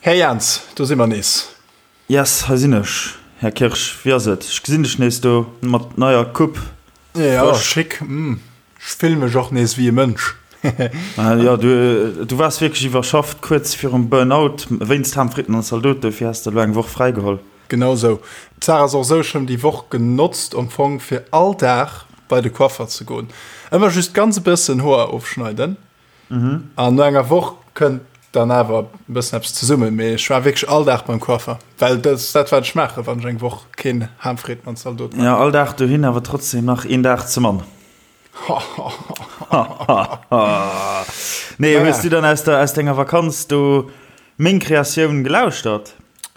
Här Jans, do si mer nees. Yes, hei sinn ech. Här Kirsch, wéi ass et? Ech gesinn dech nees do mat neier Coupe. Jo, schick. Ech fill mech och nees wéi e Mënsch. Jo, du waars wierklech iwwerschafft, kuerz virum Burnout wéinst Ham, Fritten an Zaldot. Dofir has de elo eng Woch fräigeholl. Genau esou. D'Saach ass och esou, ech hunn déi Woch genotzt am Fong fir all Dag bei de Coiffer ze goen. Ëmmer just ganz e bëssen Hoer ofschneiden. An no enger Woch kënnt dann awer e bëssen eppes zesummen. Mee ech war wierklech all Dag beim Coiffer, well dat ass dat, wat ech maachen, wann ech eng Woch keen Ham, Fritten an Zaldot maachen. Jo, all Dag dohin, awer trotzdem nach een Dag ze mann. Nee, hues du dann aus der, aus denger Vakanz do meng Kreatioun gelauschtert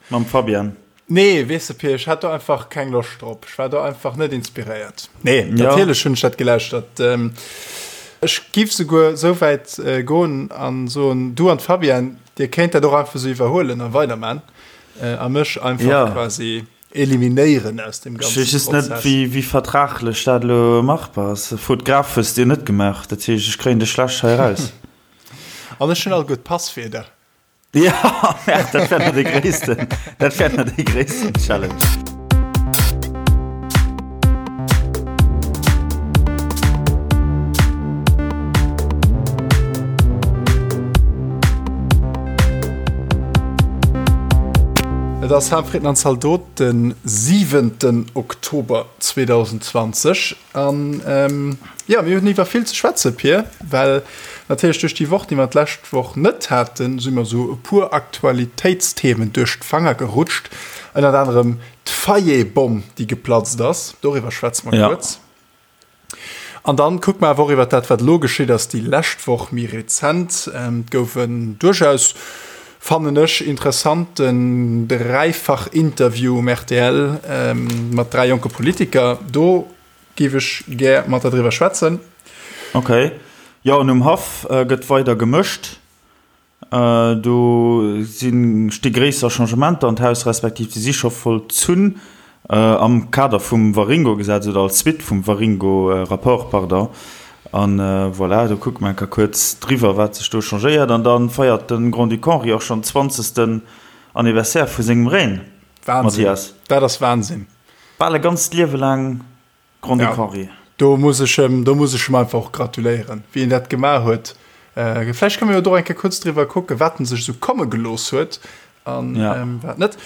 mam Fabian? Nee, weess de Pir, ech hat do einfach keng Loscht drop. Ech war do einfach net inspiréiert. Nee, ja. natierlech hunn ech dat gelauschtert. Ähm, ech giff souguer sou wäit äh, goen an soen, du an d'Fabienne, dir kéint dat och einfach sou iwwerhuelen a weiderman äh, a mech einfach ja. quasi eliminéieren aus dem ganzen Ech weess just net, wéi, wéi vertraglech dat elo machbar ass. Fotograf hues de jo net gemaach, dat heescht, ech kréien dech schlecht hei eraus. An ech hunn all gutt Passwierder. Ja, dat wär nach dee gréissten, dat wär nach dee gréissten Challenge. Et ass Ham, Fritten an Zaldot, de siwenten Oktober 2020. An jo, mir hunn iwwer vill ze schwätzen, Pir, well natierlech duerch déi Woch, déi mer d'lescht Woch net haten, si mer esou e puer Aktualitéitsthemen duerch d'Fanger gerutscht. Ënnert anerem d'Fayet-Bomm, déi geplatzt ass. Doriwwer schwätze mer kuerz. An dann kucke mer awer och iwwer dat, wat elo geschitt ass déi lescht Woch, méi rezent. Et gouf en duerchaus, fannen ech, interessanten Dräifach-Interview um rtl mat 3 jonke Politiker. Do géif ech gär mat der driwwer schwätzen. Ok. Jo, an um Haff gëtt weider gemëscht. Do si sti gréisser Changementer an d'Haus, respektiv déi si scho vollzunn am Kader vum Waringo-Gesetz oder als Suite vum Waringo-Rapport, pardon. An voilà, do kucke mer eng Kéier kuerz driwwer, wat sech do changéiert. An da feiert de Grand-Duc Henri och schonn zwanzegsten Anniversaire vu sengem Règne, Wahnsinn, Mathias. Dat ass Wahnsinn. Bal e ganzt Liewe laang Grand-Duc Henri. Do muss ech em, do muss ech em einfach och gratuléieren, wéi en dat gemaach huet. Vläicht kënne mer jo do eng Kéier kuerz driwwer kucken, wat en sech esou komme gelooss huet an wat net.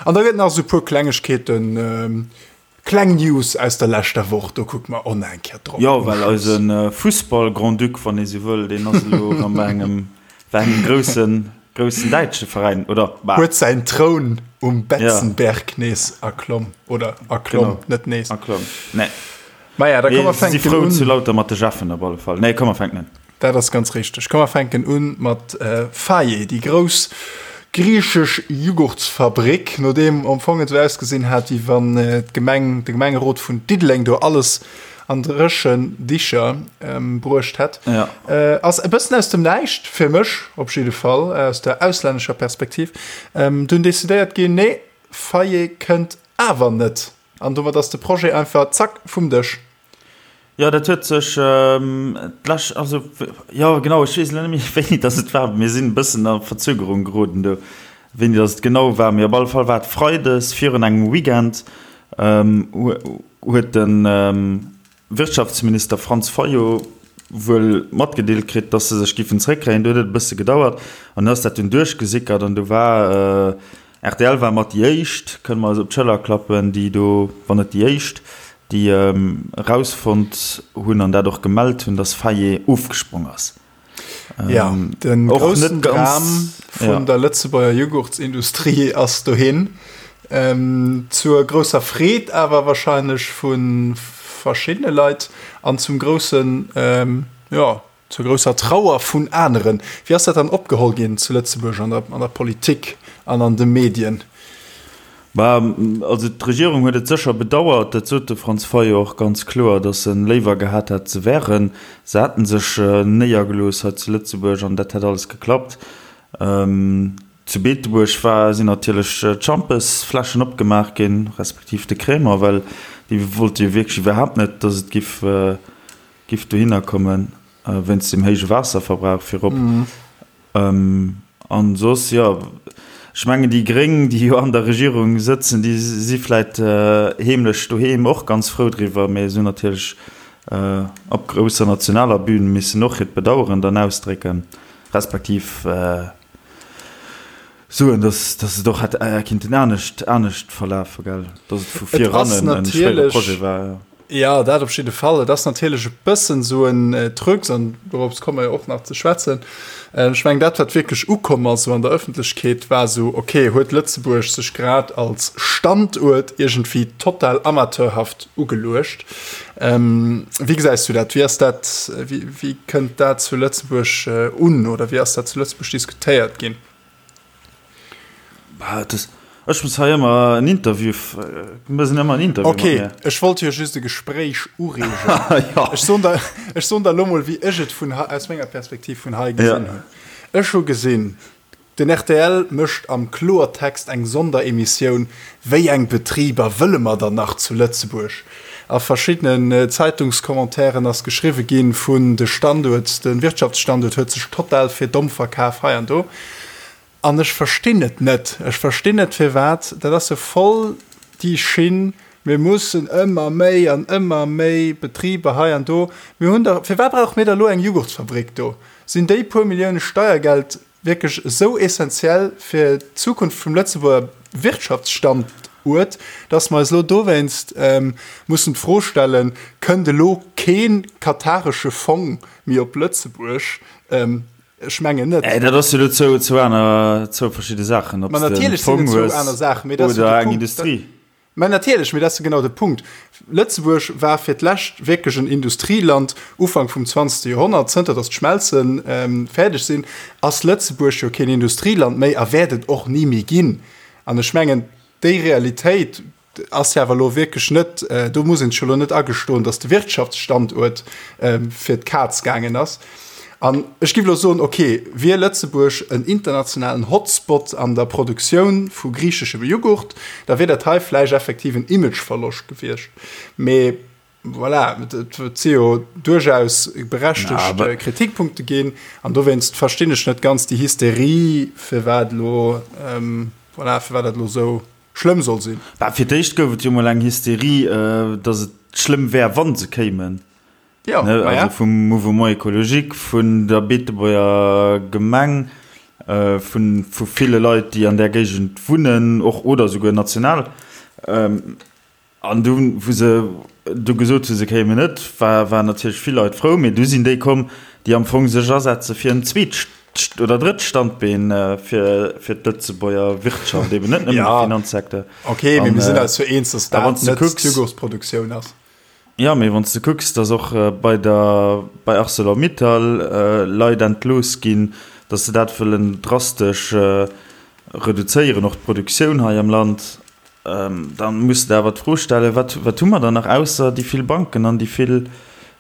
An da gëtt nach esou e puer Klengegkeeten, kleng News aus der leschter Woch, do kucke mer och nach eng Kéier drop. Jo, well eise Fussball-Grand-Duc, wann ee sou wëll, deen ass elo erëm bei engem, bei engem groussen, groussen däitsche Veräin, oder? Bah. Huet säin Troun um Betzenberg nees erklomm, oder erklomm, genau. Net nees. Erklomm, nee. Maja, da komm mer fänken un. Si frou zu lauter mat de Jeffen op alle Fall. Nee, komm mer fänken un. Dat ass ganz richteg. Komm mer fänken un mat Faye, déi grouss griichesch Jughurtsfabrik, nodeem am Fong et esou ausgesinn hat, wéi wann d'Gemeng, de Gemengerot vun Diddeleng do alles an dréchen Dicher bruecht hätt. Ja. Ass e bëssen aus dem Näischt, fir mech op jidde Fall, aus der auslännescher Perspektiv, dunn decidéiert ginn, nee, Faye kënnt awer net. An domat ass de Projet einfach zack vum Dësch. Jo, dat huet sech d'lescht, also jo genau, ech weess elo net méi wéini datt et war, mir sinn e bëssen a Verzögerung geroden do, wéini datt et genau war, mee op alle Fall war et freides virun engem Weekend, huet de Wirtschaftsminister Franz Fayot wuel matgedeelt kritt, datt se sech giffen zréckkréien. Do huet et e bësse gedauert an du ass dat dunn duerchgesickert an du war rtl war mat déi éischt, kënne mer eis op d'Schëller klappen, déi do, wann net déi éischt, déi erausfonnt hunn an dat och gemellt hunn, datt Fayet ofgesprong ass. Ja, den groussen Dram vun der Lëtzebuerger Jughurtsindustrie ass dohin. Ähm, zur grousser Freed awer wahrscheinlech vu verschiddene Leit an zum groussen, ähm, ja, zur grousser Trauer vun aneren. Wéi ass dat dann opgeholl ginn zu Lëtzebuerg an der, an der Politik an an de Medien? Bah, also d'Regierung huet et sécher bedauert, dat sot de Franz Fayot och ganz kloer, datt e léiwer gehat hätt se wären, se hätte sech néiergelooss hei zu Lëtzebuerg an dat hätt alles geklappt. Zu Beetebuerg war, sinn natierlech d'Schampesfläschen opgemaach ginn, respektiv de Crémant, well déi wollte jo wierklech iwwerhaapt net, datt et giff, giff dohinner kommen, wéinst dem héije Waasserverbrauch virop. An soss, jo. Ech mengen, déi Gréng, déi jo an der Regierung sëtzen, déi si vläit heemlech doheem och ganz frou driwwer, mee se hunn natierlech op grousser nationaler Bühn missen och hiert Bedaueren dann ausdrécken, respektiv soen, dass dass et och hätt kinnten anescht anescht verlafen, gell, dass et vu Et ass virannen e schwéiere natierlech, Projet war, jo. jo, dat op jidde Fall. Et ass natierlech e bëssen esou en Trucs, an dorops komme mer jo och nach ze schwätzen. Ech mengen, dat, wat wierklech ukomm ass esou an der Ëffentlechkeet, war esou, okay, huet Lëtzebuerg sech grad als Standuert iergendwéi total amateurhaft ugeluecht? Wéi gesäis du dat? Wéi ass dat, wéi, wéi kënnt dat zu Lëtzebuerg un oder wéi ass dat zu Lëtzebuerg diskutéiert ginn? Bah, das, ech muss hei ëmmer en Interview, du mëss ëmmer en Interview okay, mat mir. Ech wollt jo just e Gespréich ureegen. ja. Ech soen der, ech soen der lo mol, wéi ech et vun, aus menger Perspektiv vun hei gesinn ja. hunn. Ech hu gesinn, den rtl mécht am Kloertext eng Sonderemissioun, Wéi eng Betriber wëlle mer dann nach zu Lëtzebuerg? A verschiddenen Zeitungscommentairen ass geschriwwe ginn vun de Standuert, de Wirtschaftsstanduert huet sech total fir domm verkaf hei an do. An ech verstinn et net. Ech verstinn net firwat. Dat ass jo voll déi Schinn, mir mussen ëmmer méi an ëmmer méi Betriber hei an do. Mir hunn der, firwat brauche mir da elo eng Jughurtsfabrik do? Sinn déi puer Millioune Steiergeld wierklech esou essentiell fir d'Zukunft vum Lëtzebuerger Wirtschaftsstanduert, dass mer eis elo dowéinst mussen d'Fro stellen, Kënnt elo kee kataresche Fong méi op Lëtzebuerg? Ech mengen net. Dat ass jo elo zwou aner, zwou verschidde Saachen, ob s de e Fong hues oder eng Industrie. Mä natierlech, mee dat ass jo genau de Punkt. Lëtzebuerg war fir d'lescht wierklech en Industrieland Ufank vum zwanzegste Joerhonnert. Zënter datt d'Schmelze fäerdeg sinn, ass Lëtzebuerg jo keen Industrieland méi a wäert et och ni méi ginn. An ech mengen, déi Realitéit ass jo awer elo wierklech net, do muss een sech jo elo net agestoen, datt de Wirtschaftsstanduert fir d'Kaz gaangen ass. An ech giff elo soen, ok, wier Lëtzebuerg en internationalen Hotspot an der Produktioun vu griicheschem Jughurt, da wier dat hei vläicht effektiv en Imageverloscht gewiescht. Mee voilà, et si jo duerchaus berechtegt Kritikpunkte ginn. An dowéinst verstinn ech net ganz déi Hysterie, firwat elo, voilà, firwat dat elo esou schlëmm soll sinn. Bah, fir d'éischt gouf et jo mol eng Hysterie, datt et schlëmm wär, wa se kéimen. Ja, ne, ma also ja. vum Mouvement écologique, vun der Beetebuerger Gemeng, äh, vun, vu ville Leit, déi an där Géigend wunnen, och oder souguer national. Ähm, an du, wou se du gesot hu se kéimen net, war, waren natierlech vill Leit frou, mee du sinn déi komm, déi am Fong sech asetze fir en zweet oder drëtt Standbeen fir, fir d'Lëtzebuerger Wirtschaft, eben net nëmmen de Ja. Finanzsecteur. Okay, mee An, mir sinn äh, eis jo eens, dass a dat wann s de net kucks, d'Jugurtsproduktioun ass. Jo, mee wann s de kucks, datt och bei der, bei Arcelor-Mittal Leit entlooss ginn, datt se dat wëllen drastesch reduzéieren, och d'Produktioun hei am Land, da muss de awer d'Fro stellen, wat, wat hu mer dann nach ausser déi vill Banken an déi vill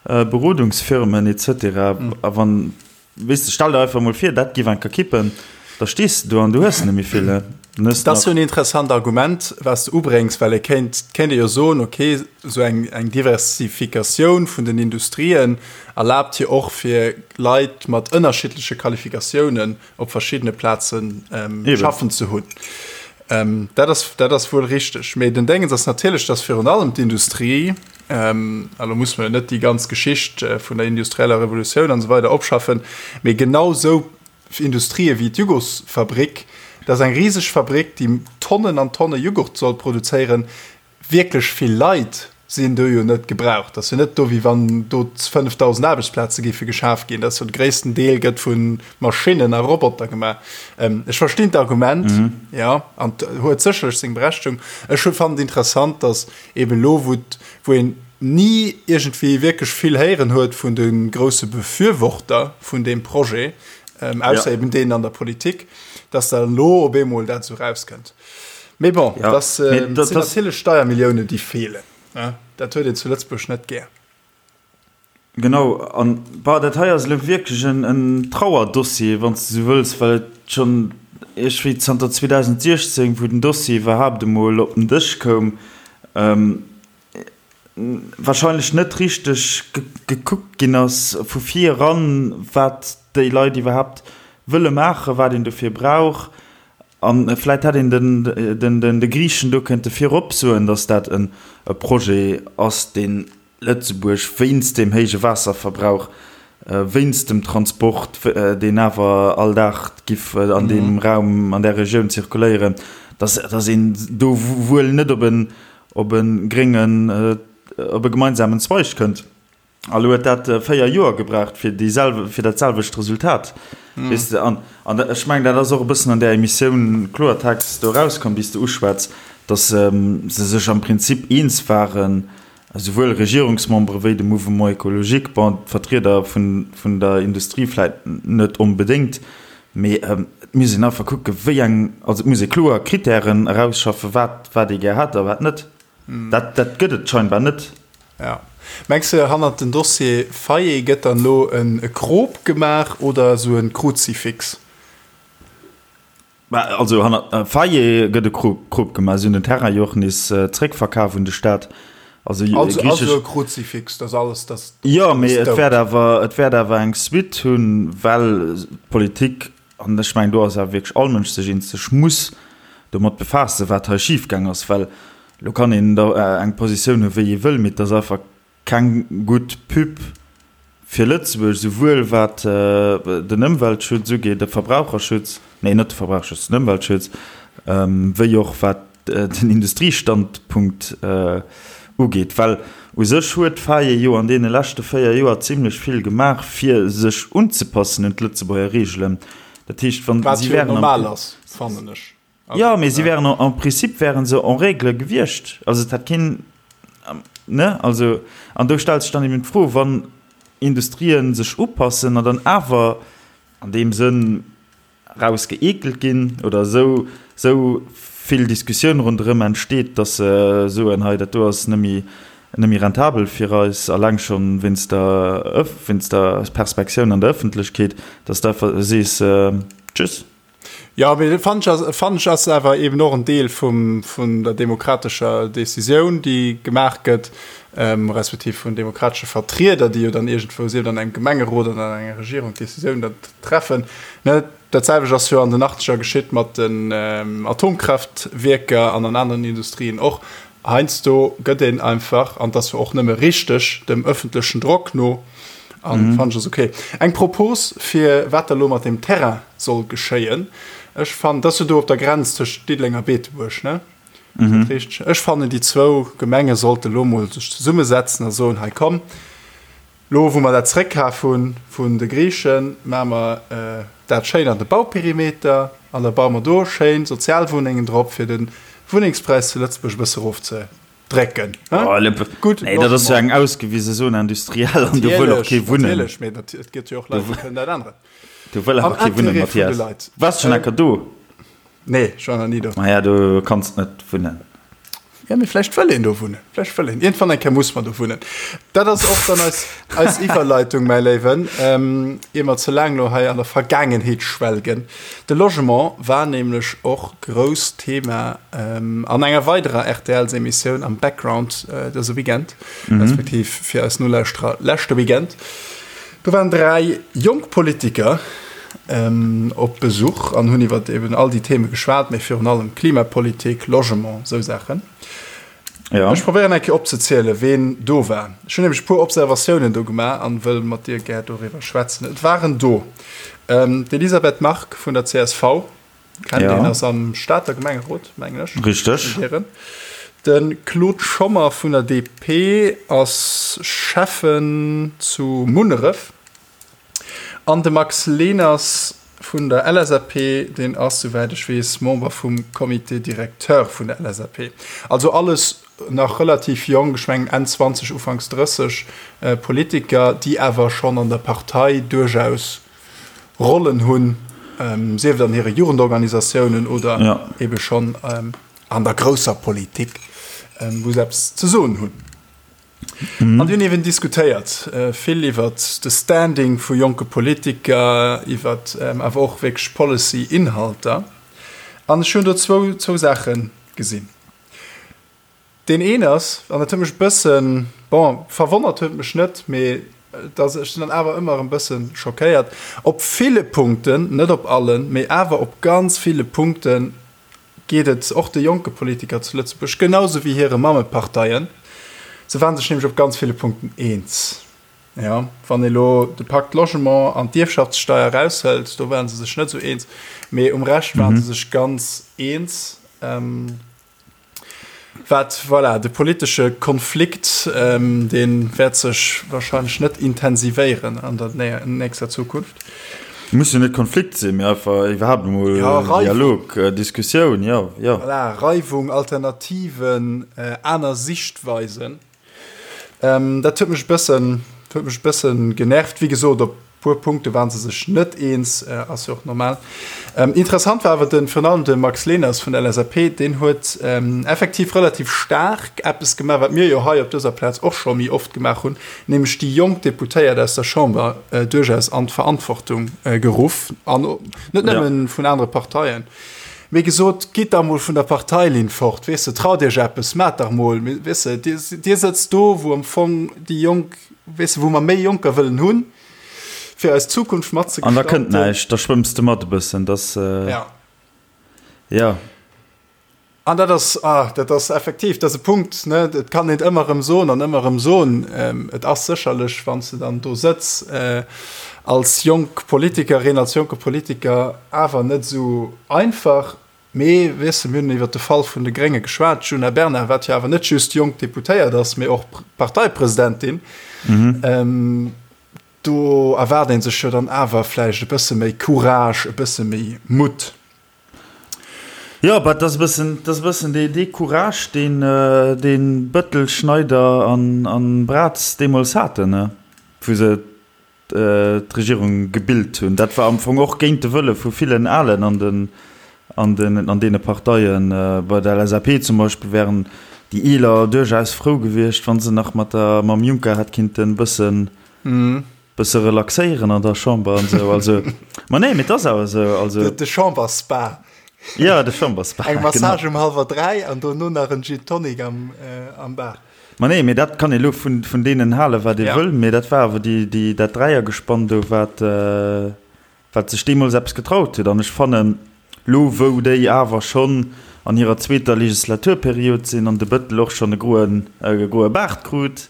Berodungsfirmen et cetera. A wann Weess de, stell der einfach mol vir, dat giff eng Kéier kippen, da stees de do an du hues net méi vill, he? Dann hues de Dat ass nach. jo en interessant Argument, wat s de ubréngs, well ee kéint, et kéint ee jo soen, okay, esou eng, eng Diversifikatioun vun den Industrien erlaabt jo och fir Leit mat ënnerschiddleche Qualifikatiounen op verschiddene Plazen Eben. schaffen ze hunn. Dat ass, dat ass wuel richteg. Mee den Déngens ass natierlech, dass virun allem d'Industrie, a lo musse mer jo net déi ganz Geschicht vun der industrieller Revolutioun an esou weider opschaffen, mee genau esou Industrië wéi d'Jugosfabrik, dat ass eng riseg Fabrik, déi Tonnen an Tonne Jughurt soll produzéieren, Wierklech vill Leit sinn do jo net gebraucht. Dat ass jo net do, wéi wann do 5.000 Aarbechtsplaze géife geschaf ginn. Dat ass jo de gréissten Deel gëtt vu Maschinnen a Roboter gemaach. Ech verstinn d'Argument, jo, an et huet sécherlech seng Berechtigung. Ech hu fannen et interessant, datt eeben elo, wou wou een ni iergendwéi wierklech vill héieren huet vun de grousse Befürworter vun deem Projet, ausser eeben deenen an der Politik, datt da elo op eemol dat esou erauskënnt. Mee bon, ja. das äh, dat, sinn natierlech Steiermilliounen, déi feelen. Ne? Dat huet een zu Lëtzebuerg net gär. Genau, an bah, dat hei ass elo wierklech en, en Trauerdossier, wann s de sou wëlls, well et schonn iergendwéi zanter 2016, wou den Dossier iwwerhaapt emol op den Dësch koum, ähm, wahrscheinlech net richteg gekuckt ginn ass vu vir eran, wat déi Leit iwwerhaapt wëlle maachen, wat een dofir brauch. A vläit hätt een den de Griichen do kënnte virop soen, datt dat e Projet ass, dee Lëtzebuerg wéinst deem héije Waasserverbrauch, wéinst dem Transport, deen awer all Dag giff an deem Raum, an där Regioun zirkuléieren, datt een do wuel net op e gréngen, op e gemeinsamen Zweig kënnt. A lo huet dat 4 Joer gebraucht fir déi selwe, fir dat selwecht Resultat. Weess de, an, an ech mengen, dat ass och e bëssen an där Emissioun Kloertext do erauskomm, déi s de uschwätz, datt se sech am Prinzip eens waren, esouwuel Regierungsmembere wéi de Mouvement écologique, bon, d'Vertrieder vun, vun der Industrie vläit net onbedéngt, mee et muss een einfach kucke wéi eng, also et muss ee kloer Krittären erausschaffen, wat, wat ee gär hätt a wat net. Dat, dat gëtt et scheinbar net. Ja. Mengs de hannert den Dossier Fayet gëtt dann elo en Krop gemaach oder esou en Kruzifix? Bah, also hannert Fayet gëtt e Krop gemaach. Si hunn den Terrain jo och nees zréckverkaf un de Staat. Also, also, also e Kruzifix, dass alles, dass. Jo, mee et wäert awer, et wäert awer eng Suite hunn, well d'Politik, an ech mengen do ass awer wierklech all Mënsch sech eens, sech muss domat befaassen, wat hei schifgaang ass, well Lo kann een da eng Positioun hu wéi ee wëll, mee et ass einfach keng gutt Pub fir Lëtzebuerg, souwuel wat den Ëmweltschutz ugeet, de Verbraucherschutz, nee net de Verbraucherschutz, den Ëmweltschutz, wéi och wat den Industriestandpunkt ugeet. Well u sech huet d'FAIE jo an deene leschte 4 Joer zimlech vill gemaach, fir sech unzepassen un d'Lëtzebuerger Reegelen. Dat heescht, wann si wären am. Wat jo normal ass, fannen ech. Jo, mee si wären en principe wären se en règle gewiescht. Also et hätt keen, ne? Also, an do stellt sech dann eben d'Fro, wann Industrien sech upassen an dann awer an deem Sënn rausgeekelt ginn oder esou, esou vill Diskussioun ronderëm entsteet, datt se soen, hei dat do ass net méi, net méi rentabel fir eis, alleng schonn wéinst der, wéinst der Perspektioun an der Ëffentlechkeet, datt s de einfach sees, tschüss. Jo, mee fannen ech ass, fannen ech ass awer eben och en Deel vum, vun der demokratescher Decisioun, déi gemaach gëtt, respektiv vun demokratesche Vertrieder, déi jo dann iergendwou, sief et an engem Gemengerot oder an enger Regierung, d'Decisioun da treffen. Ne, dat selwecht ass jo an den Achtzeger geschitt mat den Atomkraftwierker an an aneren Industrien och. Heiansdo gëtt een einfach, an dat ass jo och nëmme richteg, dem ëffentlechen Drock no, an fannen ech ass ok. Eng Propos fir wat da lo mat deem Terrain soll geschéien, ech fannen, dat ass jo do op der Grenz tëscht Diddeleng a Beetebuerg, ne? Ass dat richteg? Ech fannen déi zwou Gemenge sollte lo mol sech zesummesetzen a soen, hei komm, Lo wou mer dat zréckkaf hu vun de Griichen, maache mer dat schéin an de Bauperimeter an da baue mer do schéin Sozialwunnengen drop, fir de Wunnengspräis zu Lëtzebuerg e bësse erofzedrécken. Gutt Nee, dat ass jo eng ausgewise Zone industrielle an do wëll och kee wunnen. Natierlech, mee et gëtt jo och Leit, déi kënnen dat änneren. Do wëll awer kee wunnen, Mathias. Waars schonn eng Kéier do? Nee, ech war nach ni do. Maja, do kanns net wunnen. Ja, mee vläicht wëll een do wunnen. Vläicht wëll een. Iergendwann eng Kéier muss mer do wunnen. Dat ass och dann eis, eis Iwwerleitung, mäi Léiwen, ähm, ier mer ze laang lo hei an der Vergaangenheet schwelgen. De Logement war nämlech och grousst Thema, ähm, an enger weiderer RTLs-Emissioun am Background, äh, dëse Weekend, respektiv fir eis Nolauschterer leschte Weekend. Do waren 3 jonk Politiker op Besuch an hunn iwwer eben all déi Theme geschwat, mee virun allem Klimapolitik, Logement, esou Saachen. Ja. Ech probéieren eng Kéier opzezielen, ween do war. Ech hunn nämlech e puer Observatiounen do gemaach an wëll mat dir gär doriwwer schwätzen. Et waren do d'Elisabeth Margue vun der csv, Kennt ja. een, ass am Stater Gemengerot, mengen ech. Richteg. De Claude Schommer vun der DP ass Schäffen zu Munneref. An de Max Leners vun der LSAP, deen ass, souwäit ech weess, Member vum Comité directeur vun der LSAP. Also alles nach relativ jonk, ech mengen Enn 20, Ufanks 30, Politiker, déi awer schonn an der Partei duerchaus Rollen hunn, sief et an hire Jugendorganisatiounen oder ebe schonn an der grousser Politik, wou se eppes ze soen hunn. An déi hunn eeben diskutéiert vill iwwer de Standing vu jonke Politiker, iwwer awer och wierklech Policy-Inhalter. An ech hunn do zwou Saache gesinn. Deen een ass, an dat huet mech e bëssen, bon, verwonnert huet mech net, mee. Dass ech sinn dann awer ëmmer erëm bësse schockéiert. Op ville Punkten, net op allen, mee awer op ganz ville Punkte geet et och de jonke Politiker zu Lëtzebuerg genau sou wéi hire Mammeparteien. Se waren sech nämlech op ganz ville Punkten eens. Jo, wann ee lo de Pacte Logement an d'Ierfschaftssteier eraushëlt, do waren se sech net sou eens, mee um Rescht waren se sech ganz eens. Wat, voilà, de politesche Konflikt, dee wäert sech wahrscheinlech net intensivéieren an der nächster Zukunft. Muss jo net Konflikt sinn, mee einfach iwwerhaapt emol Dialog, Diskussioun, jo, jo. Voilà, Reiwung, Alternativen, aner Sichtweisen. Dat huet mech e bëssen, huet mech e bëssen genervt. Wéi gesot, op puer Punkte waren se sech net eens, ass jo och normal. Interessant war awer den, virun allem de Max Leners vun der LSAP, deen huet effektiv relativ staark eppes gemaach, wat mir jo hei op dëser Plaz och scho méi oft gemaach hunn, nämlech déi jonk Deputéiert aus der Chamber duerchaus an d'Verantwortung geruff, an net nëmmen vun anere Parteien. Mee gesot, gitt dach mol vun der Parteilinn fort, weess de, traut iech eppes, maacht dach mol, weess de, dir, dir sëtzt do, wou am Fong déi Jonk, weess de, wou mer méi Jonker wëllen hunn, fir eis Zukunft mat ze An da kënnt gestalten. näischt, da schwëmms de mat e bëssen, dass, Ja. ja. An dat ass, ah, dat ass effektiv, dat ass e Punkt, ne, et kann een et ëmmer erëm soen an ëmmer erëm soen, et ass sécherlech, wann s de dann do sëtz als jonk Politikerin, als jonke Politiker, awer net esou einfach. Mee, weess de, mir hunn iwwert de Fall vun de Grénge geschwat, d'Djuna Bernard, wat jo awer net just jonk Deputéiert ass, mee och Parteipresidentin, do erwaart ee sech jo dann awer vläicht e bësse méi Courage, e bësse méi Mutt. Jo, bah, 't ass e bëssen, 't ass e bëssen dee, dee Courage, deen, deen Bëttel, Schneider an, an Braz deemools haten, ne, wou se d'Regierung gebilt hunn. Dat war am Fong och géint de Wëlle vu villen Alen an den, an den, an deene Parteien. Bei der LSAP zum Beispill wären déi Eeler duerchaus frou gewiescht, wa se nach mat der, mam Juncker hätt kinnten e bëssen, Bësse relaxéieren an der Chamber an esou, also, ma nee, mee et ass awer esou, also. De Chamberspa. Ja, de Chamberspa, genau. Eng Massage um hallwer 3 an dono nach en Gin Tonic am, am Bar. Ma nee, mee dat kann ee lo vun, vun deenen halen, wat ee wëll, mee dat war awer déi, déi, dat Dräiergespann do, wat, wat sech deemools eppes getraut huet. An ech fannen, lo wou déi awer schonn an hirer zweeter Legislaturperiod sinn an de Bëttel och schonn e groen, e groe Baart krut,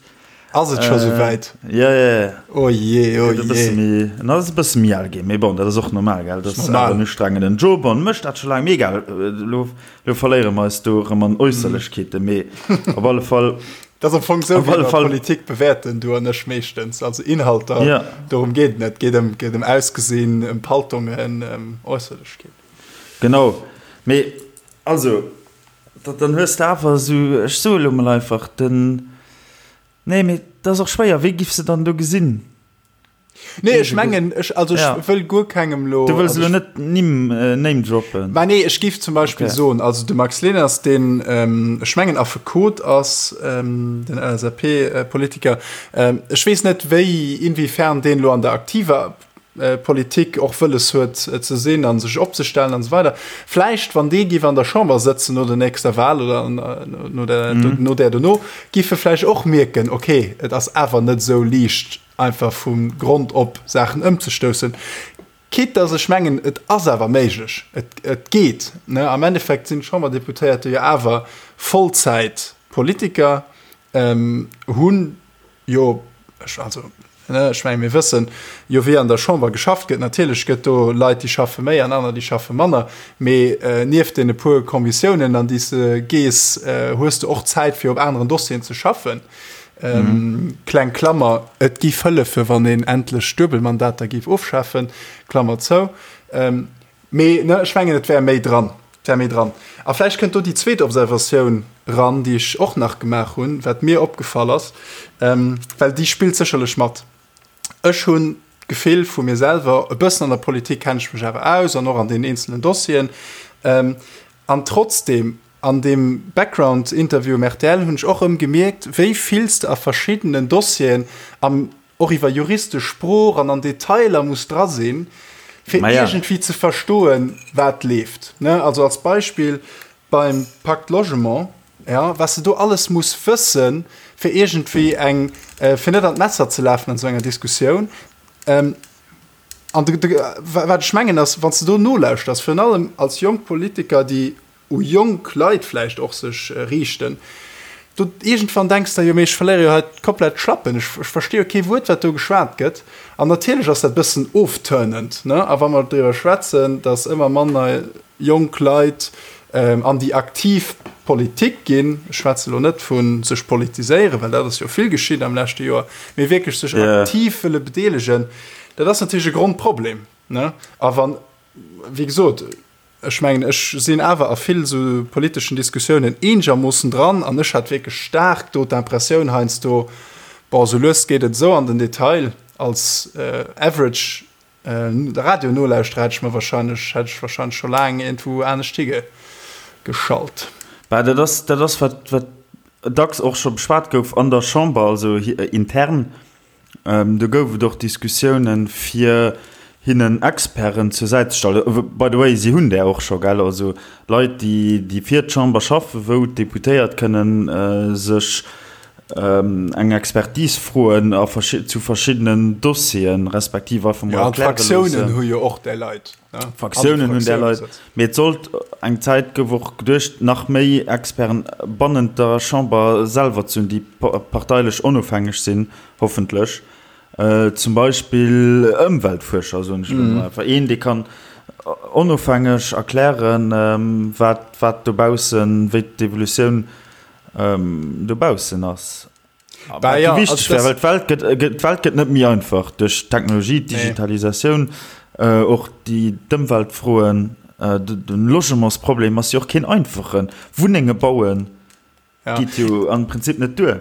Ass et scho sou wäit? Jo, jo, jo. Oh jee, oh jee. En ass e bësse méi al ginn, mee bon, dat ass och normal, gell? Dat ass awer en ustrengenden Job an mécht dat scho laang. Mee egal, elo, elo verléiere mer eis do erëm an Äusserlechkeeten, mee op alle Fall. Dat ass am Fong esou, wéi mer Politik bewäerten, du an ech meeschtens. Also Inhalter, ja. Dorëm geet et net. Et geet ëm, geet ëm Ausgesinn, ëm Paltongen, ëm Äusserlechkeeten. Genau. Mee also, da, dann hues de awer esou, ech soe lo mol einfach, den, nee, mee dat ass och schwéier, wéi giffs de dann do gesinn? Nee, ech mengen, ech, also ech ja. wëll guer kengem lo. Du wëlls lo net Nimm, äh, Name droppen. Mä nee, ech giff zum Beispill okay. soen, also de Max Leners, deen, ähm, ech mengen Affekot ass, ähm, den LSAP-Politiker, ähm, ech weess net, wéi, inwiefern deen lo an der aktiver äh, Politik och wëlles huet äh, ze sinn an sech opzestellen an so weider. Vläicht, wann dee giff an der Chamber sëtzen no der nächster Wahl oder an, äh, no der, mhm. no der dono, giff e vläicht och mierken, okay, et ass awer net sou liicht, einfach vu Grond op Saachen ëmzestoussen, quitte dass ech mengen, et ass awer méiglech, et, et geet. Ne? Am Endeffekt sinn d'Chamberdeputéierte jo awer Vollzäitpolitiker, ähm, hunn jo, ech, also, ne, ech menge mir wëssen jo, wéi an der Chamber geschafft gëtt. Natierlech gëtt do Leit, déi schaffe méi an aner, déi schaffe manner, mee äh, nieft deene puer Kommissiounen, an déi s de gees, äh, hues de och Zäit, fir op aneren Dossieren ze schaffen. Mhm. Kleng Klammer, et giff hëllefe wann een endlech Duebelmandater giff ofschafen, Klammer zou. Ähm, mee ne, ech mengen et wär méi dran, et wär méi dran. A vläicht kënnt do déi zweet Observatioun ran, déi ech och nach gemaach hunn, wat mir opgefall ass, ähm, well déi spillt sécherlech mat. Ech hunn d'Gefill vu mir selwer, e bëssen an der Politik kenne ech mech awer aus an och an den eenzelen Dossieren, ähm, an trotzdem An deem Background-Interview um rtl hunn ech och erëm gemierkt, wéi vill s de a verschiddenen Dossieren am och iwwer juristesch Sprooch an an Detailer muss dra sinn, fir iergendwéi ze verstoen, wat leeft. Also als Beispill beim Pacte Logement. Ja, was de do alles muss wëssen, fir iergendwéi eng, fir net an d'Messer ze lafen an esou enger Diskussioun. An de, de, wat ech mengen ass, wann s de do nolauschters, virun allem als jonk Politiker, déi u jonk Leit vläicht och sech riichten, do iergendwann denks de, jo mee ech verléiere jo hei komplett d'Schlappen, ech, ech versti jo kee Wuert, wat do geschwat gëtt. An natierlech ass dat e bëssen ofturnend, ne? A wa mer driwwer schwätzen, datt ëmmer manner jonk Leit an déi aktiv Politik ginn, ech schwätze lo net vu sech politiséieren, well dat ass jo vill geschitt am leschte Joer, mee wierklech sech aktiv wëlle bedeelegen, dat ass natierlech e Grondproblem. A wann, wéi gesot, ech mengen, ech sinn awer a vill esou politeschen Diskussiounen eenegermoossen dran an ech hat wierklech staark do d'Impressioun heiansdo, bon, esou lues geet et esou an den Detail, als average De Radio nolauschtere hätt ech mer wahrscheinlech, hätt ech wahrscheinlech scho laang iergendwou anescht hi geschalt. Bah, dat ass, dat ass wat, wat dacks och scho beschwat gouf an der Chamber, also intern. Do gouf et och Diskussiounen, fir hinnen Experten zur Säit ze stellen. By the way, si hunn där och scho, gell? Also Leit, déi, déi fir d'Chamber schaffen, wou d'Deputéiert kënnen sech eng Expertise froen a zu verschiddenen Dossieren, respektiv einfach mol erkläre loossen. Ja, d'Fraktiounen hu jo och där Leit. D'Fraktiounen hunn där Leit. Mee et sollt eng Zäit, gouf och geduecht, nach méi Experten bannent der Chamber selwer ze hunn, déi parteilech onofhängeg sinn, hoffentlech. Zum Beispill Ëmweltfuerscher, soen ech elo mol einfach. Een, dee kann onofhängeg erklären, wat, wat dobaussen, wéi d'Evolutioun dobaussen ass. Bah, ja, wichteg wär, well d'Welt gëtt, d'Welt gëtt net méi einfach duerch d'Technologie, d'Digitalisatioun, nee. Och déi d'Ëmweltfroen, den Logementsproblem ass jo och keen einfachen. Wunnenge bauen ja. geet jo am Prinzip net duer.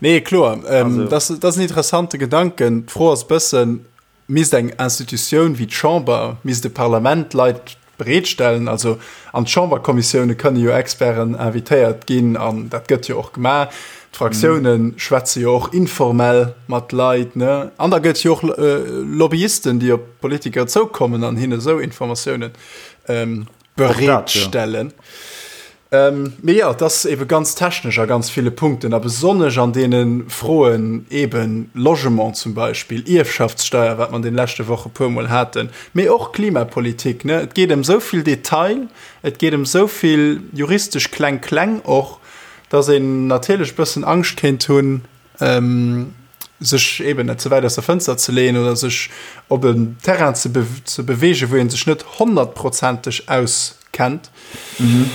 Nee, kloer. Ähm, also. Dat ass en interessante Gedanken. D'Fro ass bëssen, Misst eng Institutioun wéi d'Chamber, misst e Parlament Leit bereetstellen? Also an d'Chamberkommissioune kënne jo Experten invitéiert ginn an dat gëtt jo och gemaach. D'Fraktioune schwätze jo och informell mat Leit, ne? An da gëtt jo och Lobbyisten, déi op d'Politiker zoukommen an hinne esou Informatiounen bereetstellen. Mee jo, et ass ebe ganz technesch a ganz ville Punkten a besonnesch an deene Froen, eben Logement zum Beispill, Ierfschaftssteuer, wat mer an deene leschte Woche puermol haten, mee och Klimapolitik, ne. Et geet ëm esou vill Detail, et geet ëm esou vill juristesch Kleng-Kleng och, dass een natierlech e bëssen Angscht kéint hunn, sech eben net ze wäit aus der Fënster ze leeën oder sech op en Terrain ze, be ze beweegen, wou een sech net honnertprozenteg auskennt. Mhm.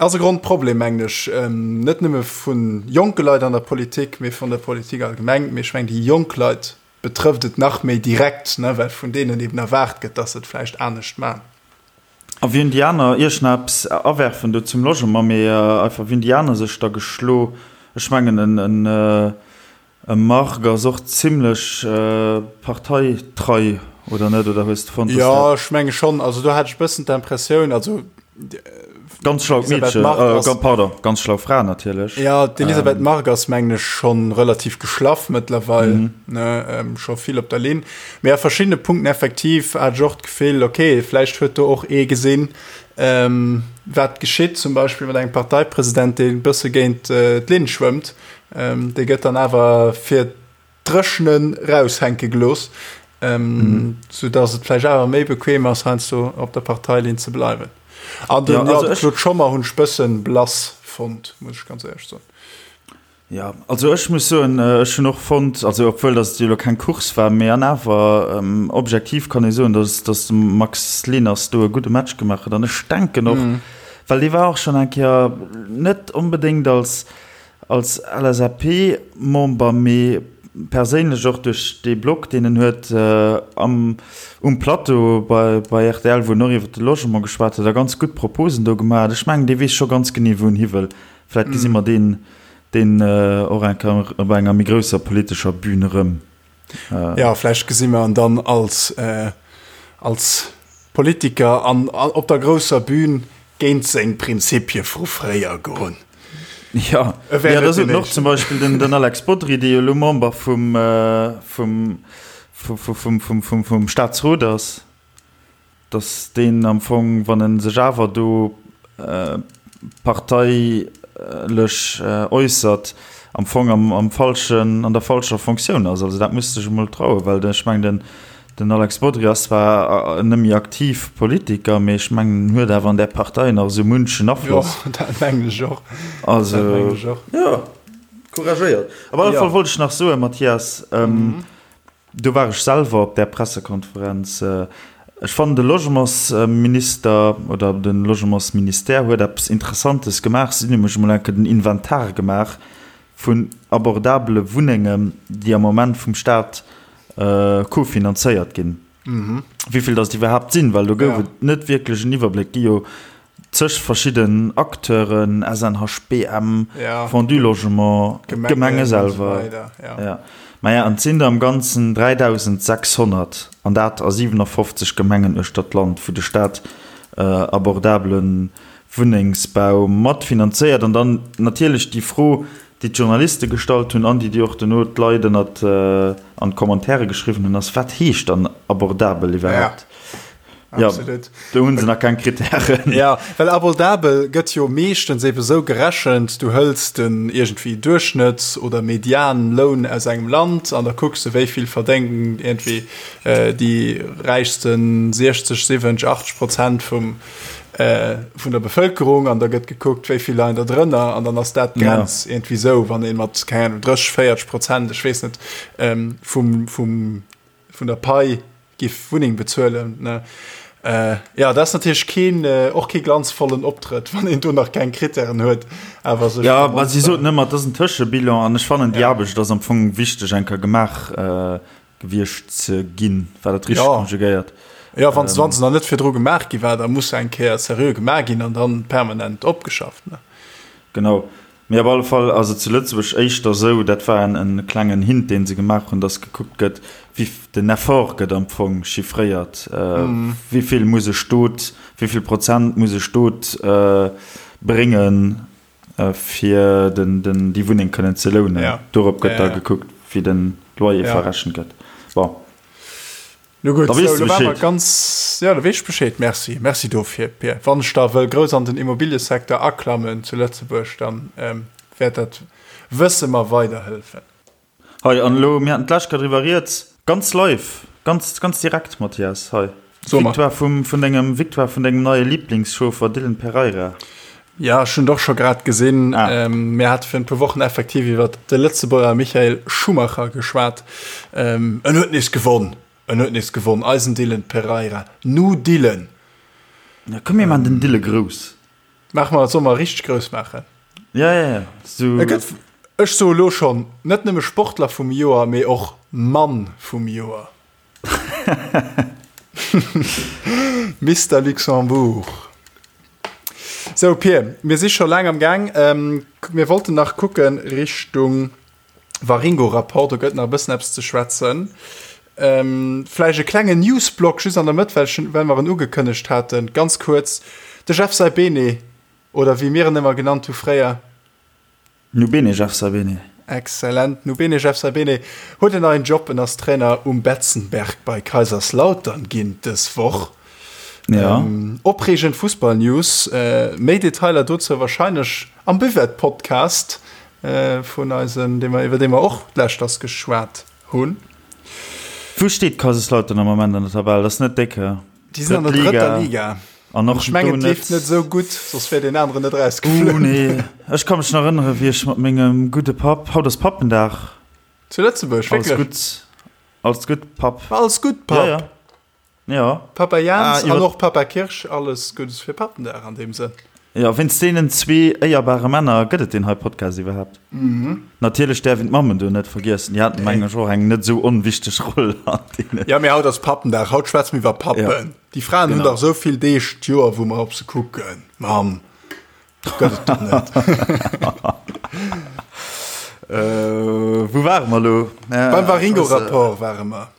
Ass e Grondproblem, mengen ech, ähm, net nëmme vun jonke Leit an der Politik, mee vun der Politik allgemeng. Mee ech mengen, déi jonk Leit betrëfft et nach méi direkt, ne, well vun deenen eben erwaart gëtt, dass se et vläicht anescht man. A wéi hunn déi aner, ier ech nach eppes awerfen do zum Logement, mee einfach, wéi hunn déi aner sech da geschlo? Ech mengen en e Margue ass och zimlech parteitrei, oder net? Oder hues de fonnt, dass dat. Jo, ech menge schonn. Also do hat ech e bëssen d'Impressioun, also. Ganz schlaut Meedchen, pardon, ganz schlau Fra natierlech. Jo, d'Elisabeth Margue ass, mengen ech, scho relativ geschlaff mëttlerweil, ne, scho vill op der Linn. Mee a verschiddene Punkten effektiv hat ech och d'Gefill, okay, vläicht huet do och ee gesinn, wat geschitt, zum Beispill mat engem Parteipresident, dee e bësse géint d'Linn schwëmmt, dee gëtt dann awer fir d'Dréchnen raushänke gelooss, soudass et vläicht awer méi bequem ass, heiansdo op der Parteilinn ze bleiwen. An den, ja, de Claude Schommer hunn ech bëssen blass fonnt, muss ech ganz éierlech soen. Jo, also ech muss soen, ech hunn och fonnt, also obwuel datt et jo elo keng Course war, mee an awer objektiv kann ee soen, datt datt de Max Leners do e gudde Match gemaach huet. An ech denken och, well dee war och schonn eng Kéier net onbedéngt als als LSAP-Member, mee perséinlech och duerch dee Blog, deen en huet am um Plateau bei bei rtl, wou en och iwwer de Logement geschwat huet a ganz gutt Proposen do gemaach huet. Ech mengen, dee weess scho ganz genee, wou en hi wëll. Vläit gesi mer deen deen och eng Kéier op enger méi grousser politescher Bühn erëm. Jo, vläicht gesi mer en dann als als Politiker an op der grousser Bühn géint seng Prinzipie vu fréier goen. Jo, jo, da sot en och zum Beispill den den Alex Bodry, dee jo elo Member vum vum vum vum vum vum Staatsrot ass. Datt deen am Fong, wann e sech awer do Partei. lech äussert, am Fong am, am falschen, an der falscher Fonctioun ass. Also dat muss sech emol trauen, well ech mengen, den, den Alex Bodry ass zwar net méi aktiv Politiker, mee ech mengen, en huet awer an där Partei nach esou munchen Afloss. Jo, dat mengen ech och. Also, dat mengen ech och. Jo, couragéiert. Op alle Fall wollt ech nach soen, Mathias, Do war ech selwer op där Pressekonferenz. Ech fannen, de Logementsminister oder de Logementsministère huet eppes Interessantes gemaach. Si hunn nämlech emol eng Kéier den Inventar gemaach vun abordabele Wunnengen, déi am Moment vum Staat cofinanzéiert ginn. Wéi vill datt iwwerhaapt sinn, well do gouf et net wierklech en Iwwerbléck. Gi jo zeg verschidden Acteuren, SNHBM, Fonds du Logement, d'Gemenge selwer. Maja, an et sinn der am Ganzen 3.600, an dat a 57 Gemengen uechter d'Land, wou de Staat abordabele Wunnengsbau matfinanzéiert. An dann natierlech déi Fro, déi d'Journaliste gestallt hunn an déi déi och dono d'Leit ënnert an d'Commentairen geschriwwen hunn, ass, Wat heescht dann abordabel iwwerhaapt? Ja, Absolut. Do hunn se nach keng Kritären. Ja, well abordabel gëtt jo meeschtens ebe sou gerechent, du hëls den iergendwéi Duerchschnëtts oder Medianloun aus engem Land an da kucks de wéi vill verdéngen iergendwéi déi räichsten 60, 70, 80 Prozent vum vun der Bevëlkerung an da gëtt gekuckt, wéi vill leien der drënner an dann ass dat d'Grenz ja. iergendwéi sou, wann ee mat, keng Ahnung, 30, 40 Prozent, ech weess net, vum, vum, vun der Pai giff Wunneng bezuelen ne äh, ja dat ass natierlech keen äh, och kee glanzvollen Optrëtt, wann een do nach keng Krittären huet awer sech Ja, ma si soten ëmmer, et ass en Tëschebilan an ech fannen déi ja. Aarbecht ass am Fong wichteg eng Kéier gemaach äh, gewiescht ze ginn. War dat richteg ja. konjugéiert? Ja, wann ähm, se nach net virdru gemaach gi war, da muss se eng Kéier seriö gemaach ginn an dann permanent opgeschafft ne. Genau. Mee op alle Fall ass et zu Lëtzebuerg éischter esou, dat war en e klengen Hint, dee se gemaach hunn, datt gekuckt gëtt, wéi den Effort gëtt am Fong chiffréiert, wéi vill muss e Stot, wéi vill Prozent muss e Stot bréngen, fir den, den, déi Wunneng kënnen ze lounen. Dorop gëtt da gekuckt, wéi de Loyer verrechent gëtt. Bon. No gutt, sou, lo ware mer ganz, jo, da weess ech Bescheed. Merci, merci dofir, Pir. Wann ech da wëll grouss an den Immobiliësecteur aklammen zu Lëtzebuerg, dann wäert dat Wësse mer weiderhëllefen. Hei, an elo, mir haten d'lescht Kéier driwwer rieds, ganz live, ganz, ganz direkt, Mathias, hei, Victoire vum, vun dengem, Victoire vun dengem neie Liblingschauffer Dylan Pereira. Ja, ech hunn et och scho grad gesinn. Ah. Mir hate virun e puer Wochen effektiv iwwer de Lëtzebuerger Michael Schumacher geschwat. En huet nees gewonn. En huet nees gewonn, eisen Dylan Pereira. Nu Dylan! Ja, komm, mir maachen den Dylan grouss. Maache mer, solle mer richteg grouss maachen? Ja, ja, ja. So. E gëtt, ech soe lo schonn, net nëmme Sportler vum Joer, mee och Mann vum Joer. Mister Luxembourg. Sou Pir, mir si scho laang am Gaang. Mir wollten nach kucke Richtung Waringo-Rapport, do gëtt nach e bëssen eppes ze schwätzen. Vläicht e klengen Newsblock just an der Mëtt, well ech, well mer en ugekënnegt haten. Ganz kuerz, de Jeff Saibene, oder wéi mir en ëmmer genannt hu fréier, Nu bene Jeff Sabene. Excellent. Nu bene Jeff Sabene huet en neien Job, en ass Trainer um Betzenberg bei Kaiserslautern ginn dës Woch. Ja. Ähm, opreegend Fussballnews. Äh, méi Detailer dozou wahrscheinlech am Buvette-Podcast äh, vun eisen, dee mer, iwwer dee mer och d'lescht ass geschwat hunn. Wou steet Kaiserslautern am Moment an der Tabell? Dat ass net déck, hä? Déi sinn an der drëtter Liga. An och ech mengen, et leeft net esou gutt, soss wär deen aneren net erausgeflunn. Oh nee, ech ka mech nach erënnere wéi ech mat mengem gudde Papp, haut ass Pappendag. Zu Lëtzebuerg, wierklech? Alles gutt, alles gutt, Papp. Alles gutt, Papp. Ja, ja. Ja. Papa Jans ah, an och Papa Kirsch, alles Guddes fir Pappendag an deem Sënn. Jo, wéinst deenen zwee éierbare Männer gëtt et deen hei Podcast iwwerhaapt. Natierlech däerf een d'Mammen do net vergiessen, déi haten, mengen ech, och eng net esou onwichteg Roll an deenen. Jo, mee haut ass Pappendag, haut schwätze mir iwwer Pappen. Déi Fraen hunn dach esou vill Deeg d'Joer, wou mer op se kucken. Mamm gëtt et dach net. Wou ware mer elo? Beim Waringo-Rapport ware mer.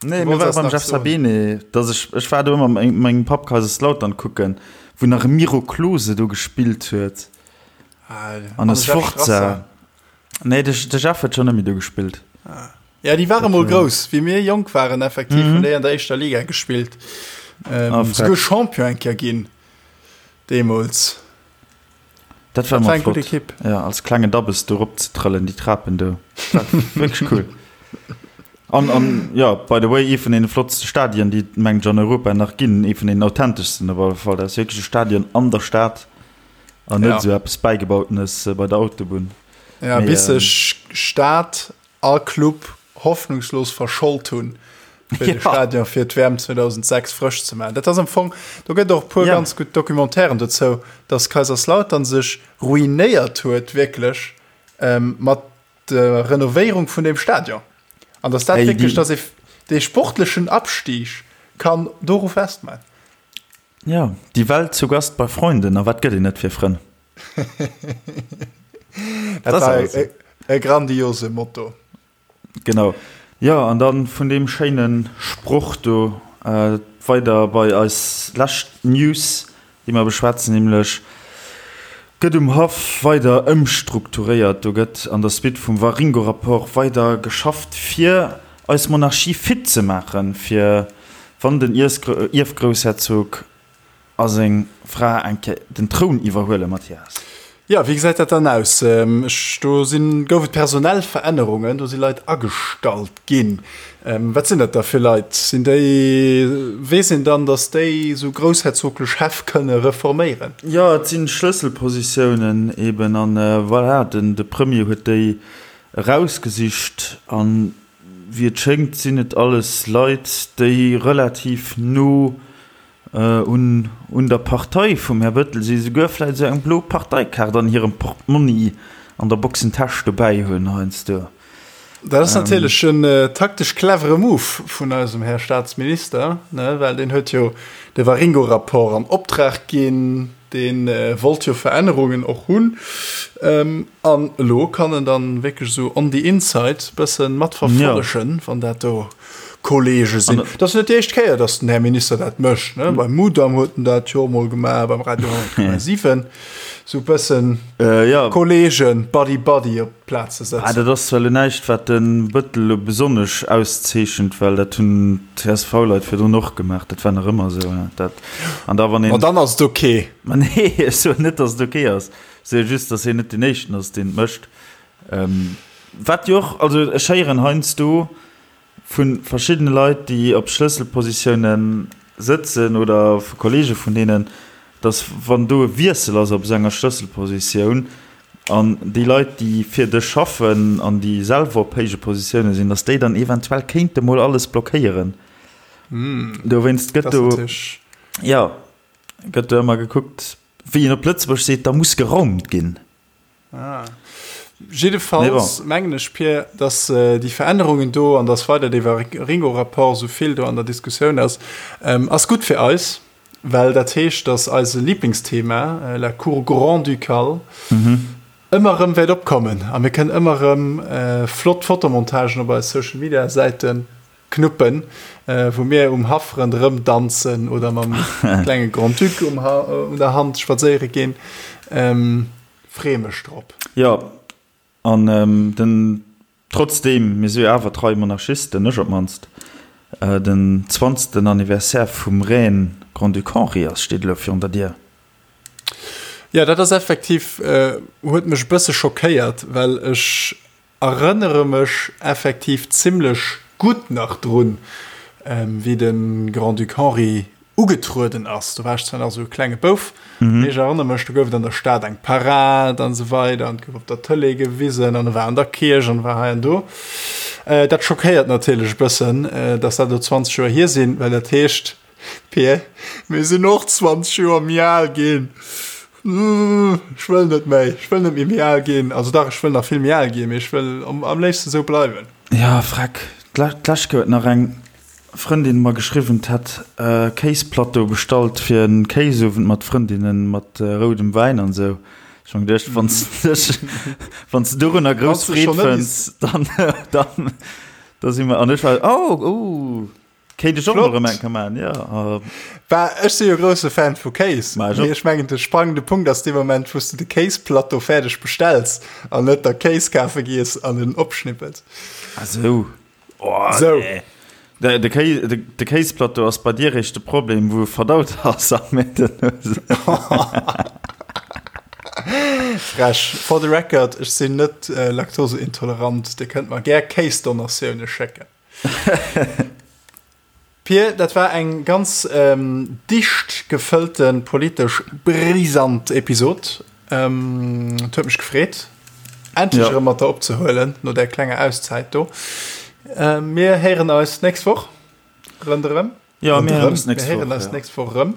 Nee, mir ware beim Jeff Sabine, dass ech, ech war do ëmmer mat mengem Papp Kaiserslautern kucken, wou nach e Miro Klose do gespillt huet. An e Sforza. Nee, de, de Jeff huet schonn net méi do gespillt. Ja, déi ware mol grouss, wéi mir jonk waren, effektiv, hunn déi an der éischter Liga gespillt. Ähm, souguer Champion eng Kéier ginn, deemools. Dat war ëmmer flott. Ekipp. Ja, als klengen Dabbes do rop ze trëllen, déi Trapen do. Dat war wierklech cool. An, an ja, by the way, ee vun deene flottste Stadien, déi et, mengen ech, an Europa nach ginn. Ee vun deenen authenteschsten op alle Fall. Dat ass wierklech e Stadion an der Stad an net esou eppes Bäigebautenes bei der Autobunn. Ja, bis sech Stad a Club hoffnungslos verschold hunn, fir de Stadion fir d'WM 2006 frësch ze maachen. Dat ass am Fong, do gëtt och e puer ganz gutt Documentairen dozou, dass Kaiserslautern sech ruinéiert huet wierklech mat der Renovéierung vun deem Stadion. An dass dat wierklech, dass ee dee sportlechen Abstieg kann doru festmachen. Jo, die Welt zu Gast bei Freunden, a wat gëtt een net fir Frënn? Dat war e, e grandiose Motto. Genau. Jo, an dann vun deem schéine Sproch do äh, weider bei eis lescht News, déi mer beschwätzen, nämlech gëtt um Haff weider ëmstrukturéiert. Do gëtt an der Suite vum Waringo-Rapport weider geschafft, fir eis Monarchie fit ze maachen, fir wann den Ierfgroussherzog A seng Fra eng Kéier den Troun iwwerhuelen, Mathias. Jo, wéi gesäit dat dann aus? Ech, do sinn, gouf et personell Verännerungen, do si Leit agestallt ginn. Wat sinn dat da fir Leit? Sinn déi, weess een dann, datt déi esou groussherzoglech Häff kënne reforméieren? Jo, et si Schlësselpositiounen eben an voilà, den, de Premier huet déi erausgesicht an wéi et schéngt sinn et alles Leit, déi relativ no Un un der Partei vum Här Bëttel si souguer vläit esou eng blo Parteikaart an hirem Portmonni an der Boxentäsch dobäi hunn heiansdo. Dat ass natierlech en taktesch clevere Move vun eisem Här Staatsminister, ne, well deen huet jo de Waringo-Rapport an Optrag ginn, dee wollt jo Verännerungen och hunn. An elo kann en dann wierklech esou on the inside bëssen matverfollegen, wann dat do Kollege sinn. Dat ass net déi éischt Kéier, datt den Här Minister dat mécht. Ne? Beim Mudam huet en dat jo emol gemaach, beim Radio 10,7. Sou bëssen äh, ja. Kollegen, Buddy Buddy op d'Plaz ze setzen. Ah, dat ass zwar elo näischt, wat de Bëttel elo besonnesch auszeechent, well dat hunn d'CSV-Leit virdrun och gemaach. Dat war nach ëmmer esou. Dat, an da wann een. Ma dann ass et ok. Ma nee, ech soen net, datt et ok ass. Ech soe just, datt hien net deen Éischten ass, deen et mécht. Ähm, wat jo och, also ech héieren heiansdo, Vu verschiddene Leit, déi op Schlësselpositioune sëtzen oder vu Kolleege vun deenen, datt wann do e Wiessel ass op esou enger Schlësselpositioun an déi Leit, déi fir dech schaffen an déi selwer op héije Positioune sinn, datt déi dann eventuell kéinte mol alles blockéieren. Dowéinst gëtt do, jo, gëtt do ëmmer gekuckt, wéi een op Lëtzebuerg seet, da muss geraumt ginn. Ah. Jiddefalls mengen ech, Pir, dass äh, déi Verännerungen do an dass weider dee Waringo-Rapport sou vill do an der Diskussioun ass, ähm, ass gutt fir eis, well dat heescht, dass eise Lieblingsthema, äh, la Cour grand-ducale, mhm. ëmmer erëm wäert opkommen a mir kënnen ëmmer erëm äh, flott Fotomontagen op eis Social-Media-Säiten knuppen, äh, wou mir um Haff ronderëm danzen oder mam klenge Grand-Duc um ha un der Hand spadséiere ginn. Ähm, Freeë mech drop. Jo, an den, trotzdem, mir si jo awer trei Monarchisten, ech op d'mannst, den zwanzten Anniversaire vum Règne Grand-Duc Henri ass, steet elo virun der Dier. Jo, dat ass effektiv, huet mech e bësse schockéiert, well ech Erënnere mech effektiv zimlech gutt nach drun, wéi de Grand-Duc Henri ugetrueden ass. Do war ech zwar nach esou e klenge Bouf, mee ech erënnere mech, do gouf et an der Stad eng Parad an esou weider an et gouf op der Tëlee gewisen an e war an der Kierch an e war hei an do. Dat schockéiert natierlech e bëssen, dass dat elo 20 Joer hier sinn, well dat heescht, Pir, mir sinn och 20 Joer méi al ginn. Ech wëll net méi, ech wëll net méi méi al ginn. Also dach, ech wëll nach vill méi al ginn, mee ech wëll am, am léifsten esou bleiwen. Ja, freck. D'lescht Kéier huet nach eng Frëndin mer geschriwwen, d'hätt e Kéisplateau bestallt fir en Kéisowend mat Frëndinnen, mat roudem Wäin an esou. Ech hu mer geduecht, wann s de dech, wann s de dorunner grouss Freed fënns, dann, dann, da si mer. An ech war, oh, oh. Kéint ech och mol erëm eng Kéier maachen, jo. Bah, ech si jo grousse Fan vu Kéis. Ma ech och. Mee ech mengen, de sprangende Punkt ass dee Moment, wou s de de Kéisplateau fäerdeg bestells an net der Kéis kafe gees an en opschnippels. Ah sou. Oh, Sou. nee. De, de, Kéis, de, de Kéisplateau ass bei dir réischt de Problem, wou e verdaut ass am Métten. Frech. For the record, ech sinn net laktoseintolerant. Dir kënnt mer gär Kéisdonatioune schécken. Pir, dat war eng ganz dicht gefëllte politesch brisant Episod. Et huet mech gefreet, endlech erëm mat der opzehuelen no där klenger Auszäit do. Mir héieren eis d'nächst Woch ronderëm. Jo, mir héieren eis d'nächst Woch. Mir héieren eis d'nächst Woch erëm.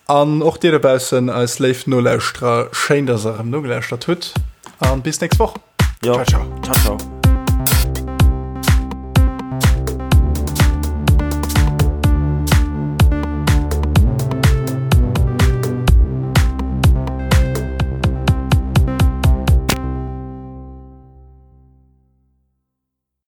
An och dir dobaussen, eis léif Nolauschterer, schéin, dass der erëm nogelauschtert hutt. An bis d'nächst Woch. Jo. Ciao, ciao. Ciao, ciao.